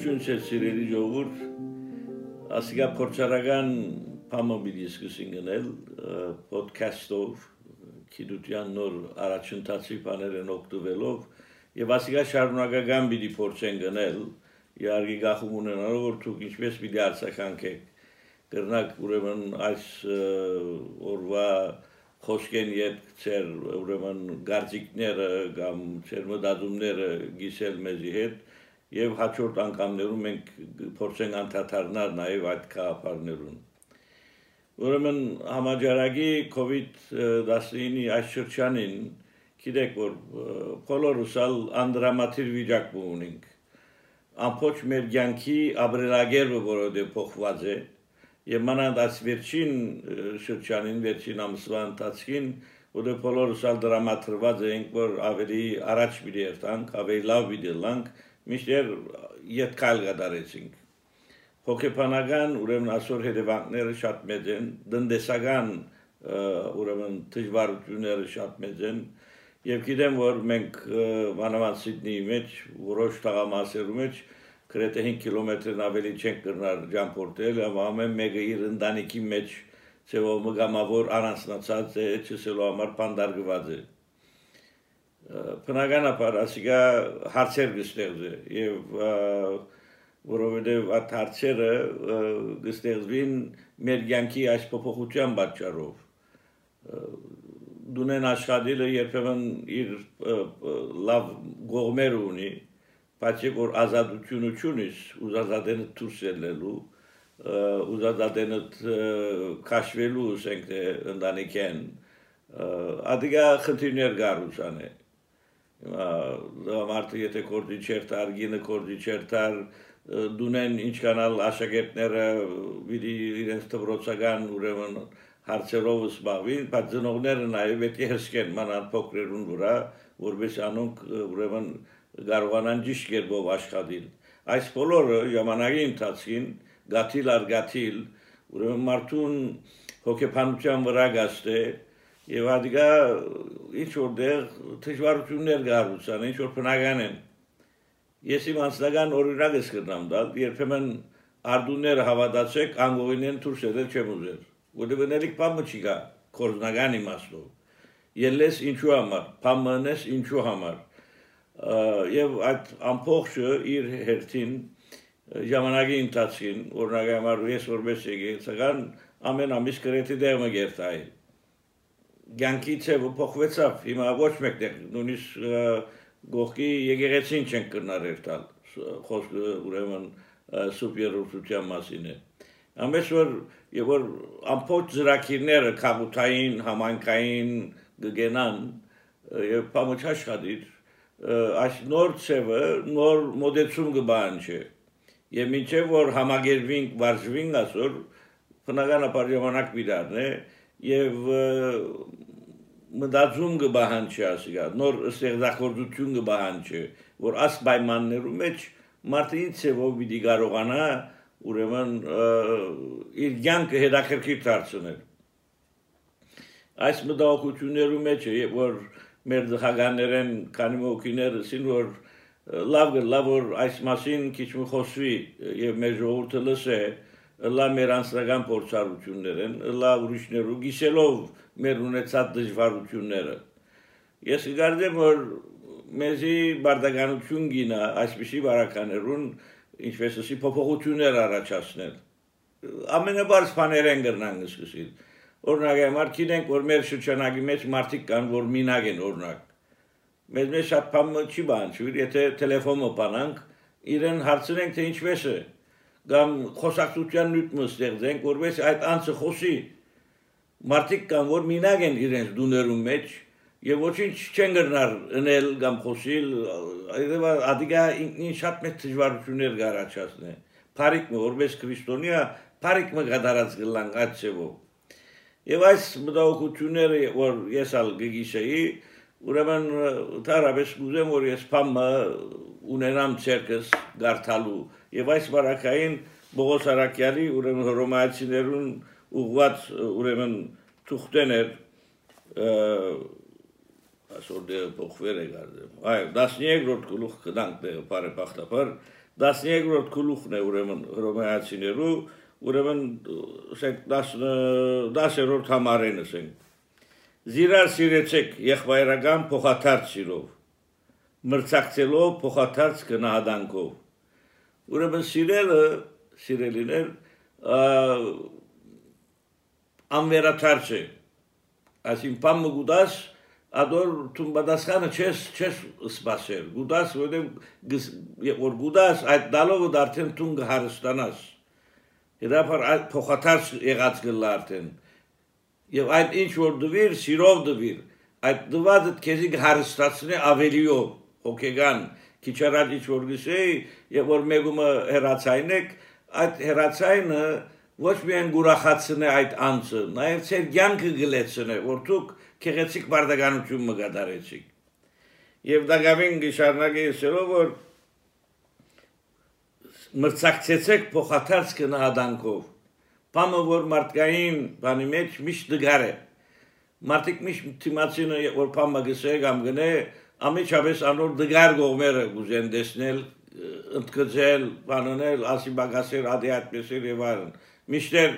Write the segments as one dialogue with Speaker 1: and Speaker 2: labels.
Speaker 1: Ողջույն սիրելի ժողովուրդ, ասիկա փորձարական բամը պիտի սկսենք գնել podcast-ով, գիտության նոր առաջընթացի բաներն օգտվելով եւ ասիկա շարունակական պիտի փորձենք գնել, իհարկե գախում ունենալով որ դուք ինչպես պիտի արձագանքեք, կրնակ ուրեմն այս օրվա խոսքեն յետ ծեր ուրեմն գարձիկները կամ ծեր մտածումները գիսել մեզի հետ եւ հաջորդ անգամներում մենք փորձենք անդադարնալ նաեւ այդ կապարներուն ուրեմն համաճարակի COVID-19-ի այս շրջանին գիտեք որ բոլորուսալ անդրամատիր վիճակում ունենք ամբողջ մեր կյանքի ապրելակերպը որովհետեւ փոխված է եւ մանավանդ այս վերջին շրջանին վերջին ամսվա ընթացքին որը բոլորուսալ դրամատրված ենք որ ավելի առաջ պիտի երթանք ավելի լավ պիտի լանք միշտ յետքալ գդարեցինք հոգեբանական ուրեմն այսօր հետևանքները շատ մեծ են դնդեսական ուրեմն դժվարությունները շատ մեծ են եւ գիտեմ որ մենք մանավանդ Սիդնեի մեջ որոշ տղամասերու մեջ գրեթե 5 կիլոմետրն ավելի չենք կրնար ճամփորդել եւ ամեն մեկը իր ընտանիքի մեջ ծեվով մգամավոր առանձնացած է չսելու համար բանդարգված է բնականաբար ասիկա հարցեր կստեղծե եւ որովհետեւ այդ հարցերը կստեղծվին մեր կյանքի այս փոփոխության պատճառով դունեն աշխատելը երբեմն իր լավ գողմեր ունի բայց որ ազատությունը չունիս ուզածադենը դուրս ելնելու ուզածադենը քաշվելու ասենք թե ընտանիքեն ադիգա խնդիրներ գարուսան է մարդը եթե կորդի չերտար գինը կորդի չերտար դունեն ինչ կանալ աշակերտները պիտի իրենց դպրոցական ուրեմն հարցերով զբաղվին բայց ծնողները նաև պետք է հսկեն մանավանդ փոքրերուն վրա որպես անոնք ուրեմն կարողանան ճիշտ կերպով աշխատել այս բոլորը ժամանակի ընթացքին գաթիլ առ գաթիլ ուրեմն մարդուն հոգեբանության վրա գաստե եւ ադիգա ինչ որտեղ դժվարություններ գարուցան ինչ որ բնական են ես իմ անձնական օրինակ եմ կրնամ տալ երբեմն արդուները հավատացեք անգողինեն դուրս ելել չեմ ուզել որտեղ բնելիք բամը չի գա կորզնական իմաստով ելես ինչու համար բամնես ինչու համար եւ այդ ամբողջը իր հերթին ժամանակի ընթացքին օրինակ համար ես որպես եկեղեցական ամեն ամիս գրեթե դեղ մը գերտայ կյանքի ցևը փոխվեցավ հիմա ոչ մեկտեղ նույնիսկ գողքի եկեղեցին չեն կրնարել տալ խոսքը ուրեմն սուպերուսության մասին է ամենս որ ամբողջ ծրագիրները քաղաքային համայնքային գգենան եւ բամուչ աշխատիր այս նոր ցևը նոր մոդեցում կբանջի եւ մինչեւ որ համագերվինք վարժվինք ասոր բնականաբար ժամանակ բիդարն է եւ մտածում կբանջի ասիգա նոր ստեղծագործություն կբանջի որ աս պայմաններում մեջ մարդը ցևով պիտի կարողանա ուրեմն իր կյանքը հետաքրքիր դարձնել այս մտահոգություններու մեջ է որ մեր դղականներեն քանի մոքիները սին որ լավ որ այս մասին քիչ մի խոսվի եւ մեր ժողովուրդը լսե լավ մեր անձնական փորձառություններն լավ ուրիշներու գիսելով մեր ունեցած դժվարությունները ես գարդեմ որ մեզի բարդականություն գինա այսպիսի բարականերուն ինչպես ասի փոփոխություններ առաջացնել ամենաբարձ բաներեն գրնան սկսել օրինակ համար գիտենք որ մեր շրջանակի մեջ մարդիկ կան որ մինակ են օրինակ մեզ շատ բան չի բանջի եթե տելեֆոնը բանանք իրեն հարցնենք թե ինչպես է կամ խոսակցության նյութը ստեղծենք որպես այդ անձը խոսի մարդիկ կան որ մինակ են իրենց դուներում մեջ եւ ոչինչ չեն գրնար ընել կամ խոսիլ ադիգա ինքնին շատ մեծ դժվարություններ գարաչացնե բարիկը որպես քրիստոնյա բարիկը գդարած գլան գացեվո եւ այս մտահոգությունները որ ես ալ գիգիշեի ուրեմն տարաբես գուզեմ որ ես փամը ունենամ ցերկս գարտալու եւ այս բարակային Բողոս Արաքյալի ուրեմն հռոմայացիներուն ուղված ուրեմն թուղթեներ այսօր դե փոխվել է գարդեմ այ 13-րդ գլուխ կդանք դե բարեբախտաբար 13-րդ գլուխն է ուրեմն հռոմեացիներու, ուրեմն 10-րդ համարեն ասենք։ Զիրար սիրեցեք եղբայրական փոխադարձ սիրով, մրցակցելով փոխադարձ գնահատանքով։ Ուրեմն սիրելիներ անվերաթարց է, այսին պամը գուդաս, ադոր տուն բադասխանը չես սպասեր, գուդաս, որ գուդաս այդ դալովը դարդեն տուն գհարստանաս, հետապար այդ փոխադարձ եղած գլա արդեն, և այդ ինչ որ դվիր, սիրով դվիր, այդ դվածդ կեզի գհարստացնե ավելիով, հոգեգան, քիչ առաջ ինչ որ գսեի, եւ որ մեկումը հերացայնեք, այդ հերացայնը ոչ միայն գուրախացնե այդ անձը, նաեւ ծեր կյանքը գլեցնե, որ դուք քեղեցիկ բարդականություն մգադարեցիք։ Եվ դակավին գշարնակի ասելով, որ մրցակցեցեք փոխադարձ գնահատանքով, բամը որ մարդկային բանի մեջ միշտ դգար է, մարդիկ միշտ թիմացինը որ բամը գսե կամ գնե, ամիջապես անոր դգար գողմերը գուզեն դեսնել, ընդգծել, բանանել, ասի բագասեր, ադի այդպեսեր եւ այլն։ Միշտեր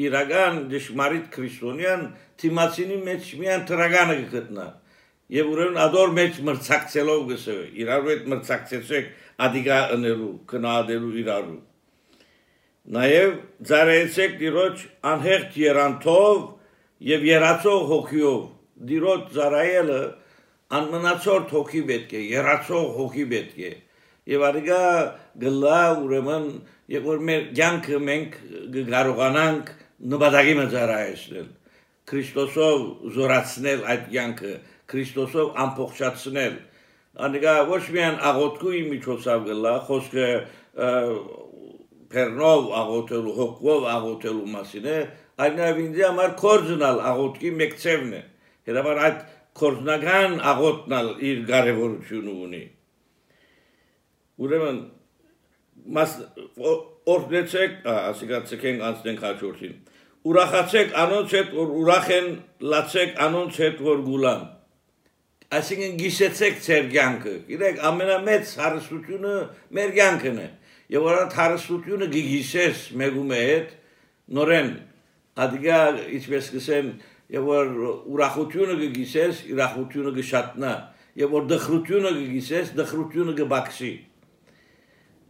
Speaker 1: իրական դժմարիտ քրիստոնյան թիմացինի մեջ միան տրագանը գտնա։ Եվ ուրեմն ադոր մեջ մրցակցելով գսե, իրարու հետ մրցակցեցեք ադիգա ընելու, կնահատելու իրարու։ Նաեւ ծառայեցեք Տիրոջ անհեղջ երանթով եւ երացող հոգիով։ Տիրոջ ծառայելը անմնացորդ հոգի պետք է, երացող հոգի պետք է։ Եվ ադիգա գլա ուրեմն, եւ որ մեր կյանքը մենք կարողանանք նպատակի ծառայեցնել, Քրիստոսով զորացնել այդ կյանքը, Քրիստոսով ամբողջացնել։ Ադիգա ոչ միայն աղոթքի միջոցով գլա, խոսքը Պերնով աղոթելու, հոգով աղոթելու մասին է, այլ նաեւ ինձ համար կորձնալ աղոթքի մեկ ծևն է։ Հետաբար այդ կորձնական աղոթնալ իր կարևորությունը ունի։ Ուրեմն օրդեցեք, ասիկացեք անցնենք հաջորդին։ Ուրախացեք անոնց հետ, որ ուրախ են, լացեք անոնց հետ, որ գուլան։ Այսինքն գիշեցեք ձեր կյանքը։ Գիտեք, ամենամեծ հարստությունը մեր կյանքն է։ Եվ որ այդ հարստությունը գիշես մեկում հետ, նորեն, ադիգա ինչպես կսեն, եւ որ ուրախությունը գիշես, ուրախությունը գշատնա, եւ որ դխրությունը գիշես, դխրությունը գբաքսի։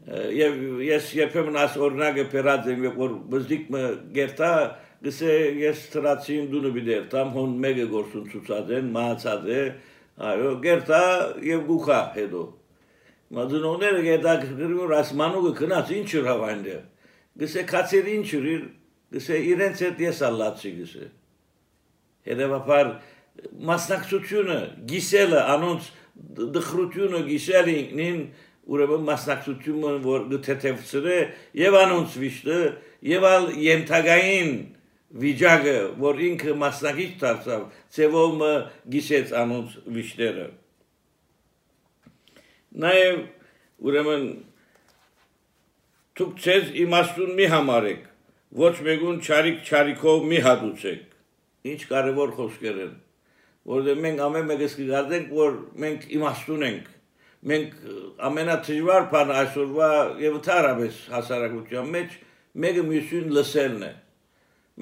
Speaker 1: Եվ ես երբեմն աս օրինակը բերած եմ, որ բզդիկը գերտա, գսե ես տրացին դունը բիդերտամ, հոն մեկը գործուն ցուցած են, մահացած է, այո, գերտա եւ գուխա հետո։ Մադունոները գետա գրում ասմանուկը քնած ինչ հրավայնը։ Գսե քացեր ինչ իր, գսե իրենց հետ ես ալլացի գսե։ Հետևաբար մասնակցությունը, գիսելը, անոնց դխրությունը գիսելին ուրեմն մասնակցությունը որ գթեթևցրե եւ անոնց վիշտը եւ ալ ենթագային վիճակը որ ինքը մասնակից դարձավ ծևով գիսեց անոնց վիշտերը նաեւ ուրեմն դուք ցեզ իմաստուն մի համարեք ոչ մեկուն չարիքով մի հատուցեք ինչ կարևոր խոսքեր են որովհետեւ մենք ամեն մեկս կգարտենք որ մենք իմաստուն ենք մենք ամենաթժվար բանը այսօրվա եւ ընդհանրապես հասարակության մեջ մեկը մյուսին լսելն է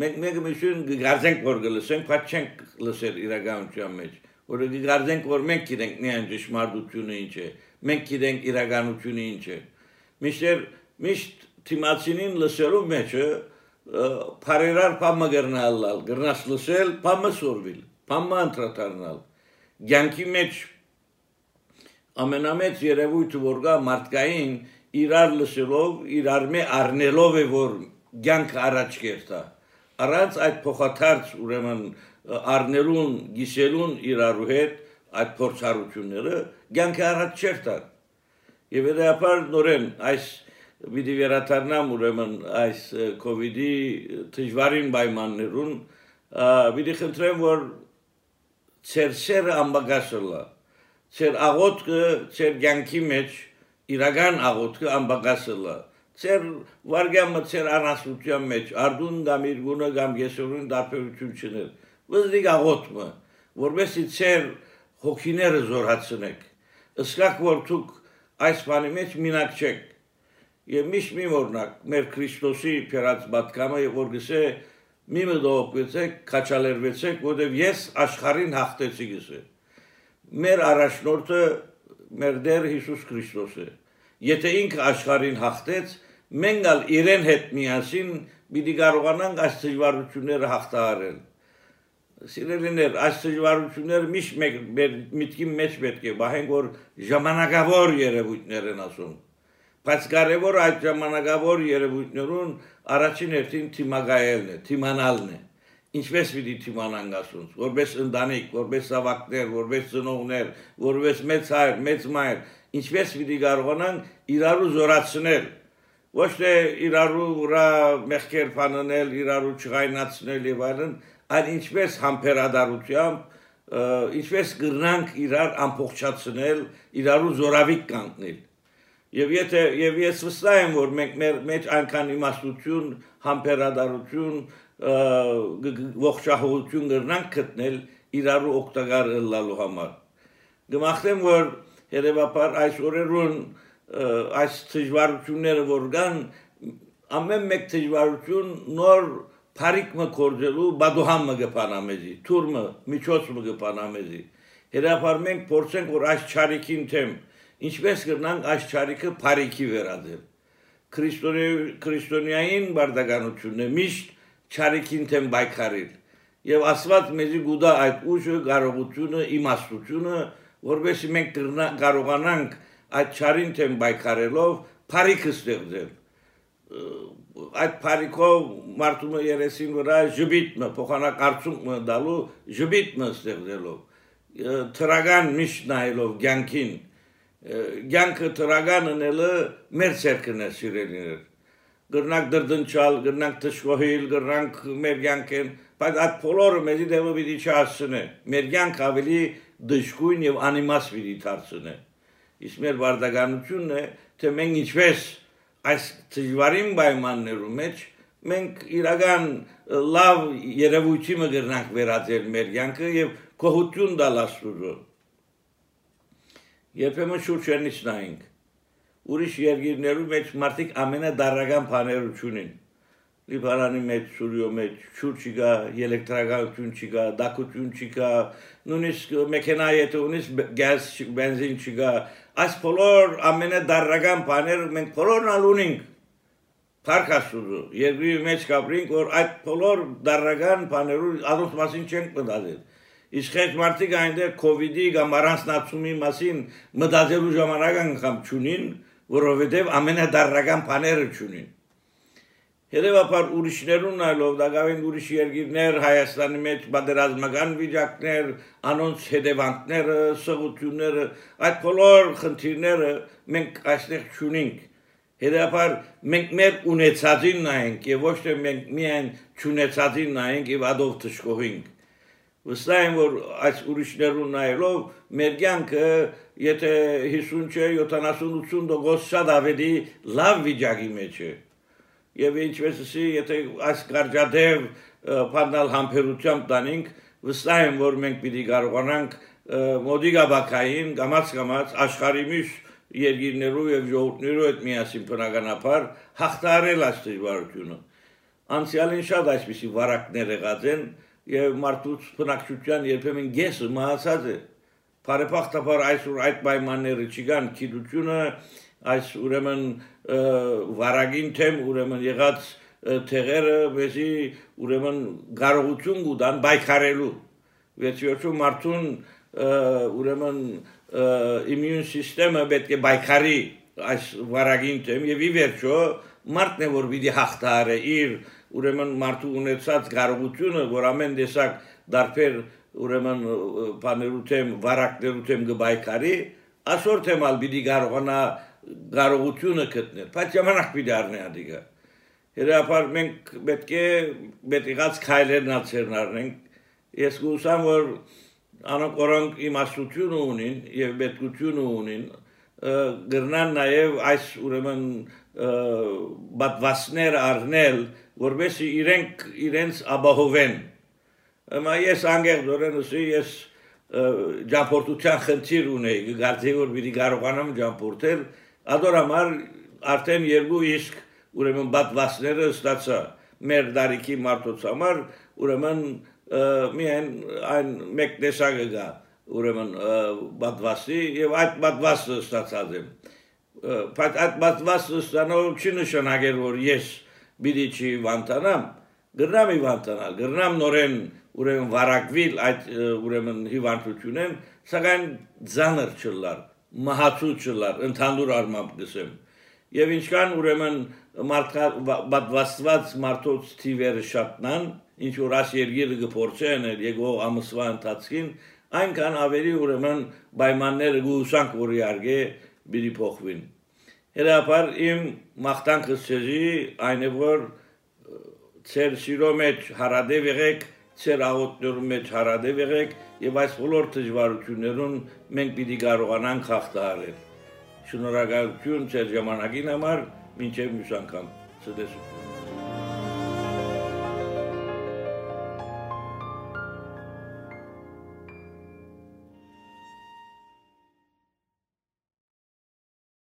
Speaker 1: մենք մեկը մյուսին գարձենք որ գլսենք բայց չենք լսել իրականության մեջ որ գարձենք որ մենք գիտենք միայն ճշմարտությունը ինչ է մենք գիտենք իրականությունը ինչ է միշտ թիմացինին լսելու մեջը բարերար բամը գրնաս լսել բամը սորվիլ բամը անդրադառնալ ցանկի մեջ ամենամեծ երևույթը որ գա մարդկային իրար լսելով իրար մե առնելով է որ ցանկը առաջ կերտա առանց այդ փոխադարձ ուրեմն առնելուն գիսելուն իրարու հետ այդ փորձառությունները ցանկը առաջ չերտա եւ հետեւաբար նորեն այս Վիդի վերաթարնամ ուրեմն այս կովիդի դժվարին պայմաններուն վիդի խնդրեմ որ ծերսերը ամբագասելա ծեր աղոթքը ծեր ցանկի մեջ իրական աղոթքը ամբագասելա ծեր վարգամը ծեր անասության մեջ արդուն կամ իր գունը կամ եսորուն դարբերություն չներ վզդիկ աղոթքը որովհետեւ ծեր հոգիները զորացնեք ըսկակ որ դուք այս բանի մեջ մինակ չեք եւ միշտ մի օրնակ մեր Քրիստոսի փերած բատկամը որ գսե մի մտողեցեք քաչալերվեցեք որովհետեւ ես աշխարհին հաղթեցի գսե մեր առաջնորդը մեր Տեր Հիսուս Քրիստոս է եթե ինքը աշխարհին հաղթեց մենք ալ իրեն հետ միասին պիտի կարողանանք այս դժվարությունները հաղթահարել Սիրելիներ, այս դժվարությունները միշտ մեր միտքի մեջ պետք է բահենք, որ ժամանակավոր երևույթներ են ասում։ Բայց կարևոր այդ ժամանակավոր երևույթներուն առաջին հերթին թիմագայելն է, թիմանալն է։ Ինչպես պիտի թիմանանք ասում, որպես ընտանիք, որպես զավակներ, որպես ծնողներ, որպես մեծ հայր, մեծ մայր, ինչպես պիտի կարողանանք իրարու զորացնել, ոչ թե իրարու վրա մեղքեր փանել, իրարու չղայնացնել եւ այլն, այլ ինչպես համբերադարությամբ, ինչպես կրնանք իրար ամբողջացնել, իրարու զորավիկ կանգնել։ Եվ ես վստահ եմ, որ մենք մեր մեջ այնքան իմաստություն, համբերադարություն, ողջահողություն կրնանք գտնել իրարու օգտակար ըլլալու համար։ Գմախտեմ, որ հետևաբար այս օրերուն այս դժվարությունները որ կան, ամեն մեկ դժվարություն նոր Փարիկը կորձելու բադուհամը գպանամեզի, թուրմը, միջոցը գպանամեզի։ Հետաբար մենք փորձենք, որ այս չարիքին թեմ, ինչպես կրնանք այս չարիքը փարիկի վերածել։ Քրիստոնեային բարդականությունն է միշտ չարիքին թեմ բայկարել։ Եվ Աստված մեզի գուտա այդ ուժը, կարողությունը, իմաստությունը, որովհետեւ մենք կարողանանք այդ չարին թեմ բայկարելով փարիկը ստեղծել։ Այդ փարիկով մարդու երեսին վրա ժբիտը փոխանակարծումը դալու ժբիտը ստեղծելով թրագան միշտ նայելով ցանկին ցանկը թրագան անելը մեր ցերկն է սիրելիներ գրնակ դրդնչալ գրնակ տշկոհիլ գրնակ մեր ցանկեն բայց այդ բոլորը մեզի դեպը պիտի չհասցնե մեր ցանկ ավելի դժգույն եւ անիմաստ պիտի դարձնե իսկ մեր վարդականությունն է թե մենք ինչպես այս դժվարին պայմաններում մեջ մենք իրական լավ երևույթի մը գրնանք վերածել մեր կյանքը եւ գոհություն տալ Աստծո։ Երբեմն շուրջերից նայենք։ Ուրիշ երկիրներում մեջ մարդիկ ամենադարական բաները ունին։ Լիբանանի մեջ, Սուրիո մեջ, շուրջ չկա, էլեկտրականություն չկա, դակություն չկա, նույնիսկ մեքենա եթե ունես գազ, բենզին չկա, այս բոլոր ամենադարական բաները մենք բոլորն ունենք։ Փառք Աստծո, երկրի մեջ կապրինք, որ այդ բոլոր դարական բաներու առանց մասին չենք մտածել։ Իսկ այդ մարդիկ այնտեղ COVID-ի կամ առանձնացումի մասին մտածելու ժամանակ անգամ չունին, որովհետև ամենադարական բաները չունին։ Հետևաբար ուրիշներուն նայելով դակավին ուրիշ երկիրներ Հայաստանի մեջ բادرազմական վիճակներ, անոնց հետևանքները, սղությունները, այդ բոլոր խնդիրները մենք այստեղ չունենք։ Հետևաբար մենք մեր ունեցածին նայենք եւ ոչ թե մենք միայն չունեցածին նայենք եւ ադով թշկողենք։ Վստահ եմ, որ այս ուրիշներուն նայելով մեր կյանքը եթե 50 չէ 70-80% շատ ավելի լավ վիճակի մեջ է։ Եվ ինչպես ասի, եթե այս կարճատև բանալ համբերությամբ տանենք, վստահ եմ, որ մենք պիտի կարողանանք մոդիգաբակային կամաց աշխարհի միշտ երկիրներով եւ ժողովուրդներով հետ միասին բնականաբար հաղթահարել այս դժվարությունը։ Անցյալին շատ այսպիսի վարակներ եղած են եւ մարդուց բնակչության երբեմն գեսը մահացած է։ Բարեբախտաբար այսօր այդ պայմանները չկան, գիտությունը այս ուրեմն վարագին թեմ ուրեմն եղած թեղերը մեզի ուրեմն կարողություն կտան բայկարելու վերջիորում մարդուն ուրեմն իմուն սիստեմը պետք է բայկարի այս վարագին թեմ եւ ի վերջո մարդն է որ պիտի հաղթահարի իր ուրեմն մարդու ունեցած կարողությունը որ ամեն տեսակ դարբեր ուրեմն բաներու թեմ վարակներու թեմ կբայկարի այսօր թեմալ պիտի կարողանա կարողությունը գտնել, բայց ժամանակ պիտի առնի ադիգա։ Հետաբար մենք պետք է եղած քայլերն ացերնարնենք։ Ես գուսամ որ անոնք որոնք իմաստություն ունին եւ պետքություն ունին, գրնան նաեւ այս ուրեմն բադվասներ առնել, որովհետեւ իրենց ապահովեն։ Amma ես անգերդորեն ասի ես ճամփորդության խնդիր ունեի, գարցի որ պիտի կարողանամ ճամփորդել Ador համար արդեն երկու իսկ ուրեմն բադվասները ստացա մեր դարիքի մարդոց համար ուրեմն միայն այն մեկ տեսակը գա ուրեմն բադվասի եւ այդ բադվասը ստացած եմ բայց այդ բադվասը ստանալու չի նշանակել որ ես պիտի չի վանտանամ գրնամ իվանտանալ գրնամ նորեն ուրեմն վարակվիլ այդ ուրեմն հիվանդությունեն սակայն ձանր չլար մահացու չլար ընդհանուր առմամբ գսեմ եւ ինչքան ուրեմն բադվաստված մարդոց թիվերը շատնան ինչ որ աս երգիրը գործեն եկող ամսվա ընթացքին այնքան ավելի ուրեմն պայմանները գուսանք որ իարգե բիդի փոխվին հետապար իմ մաղթանքս ցեզի այն է որ ծեր սիրո մեջ հարադեվ եղեք ծեր աղոթներու մեջ հարադեվ եղեք եւ այս բոլոր դժվարություններուն մենք պիտի կարողանանք հաղթահարել շնորհակալություն ծեր ժամանակին համար մինչև մյուս անգամ ցտեսություն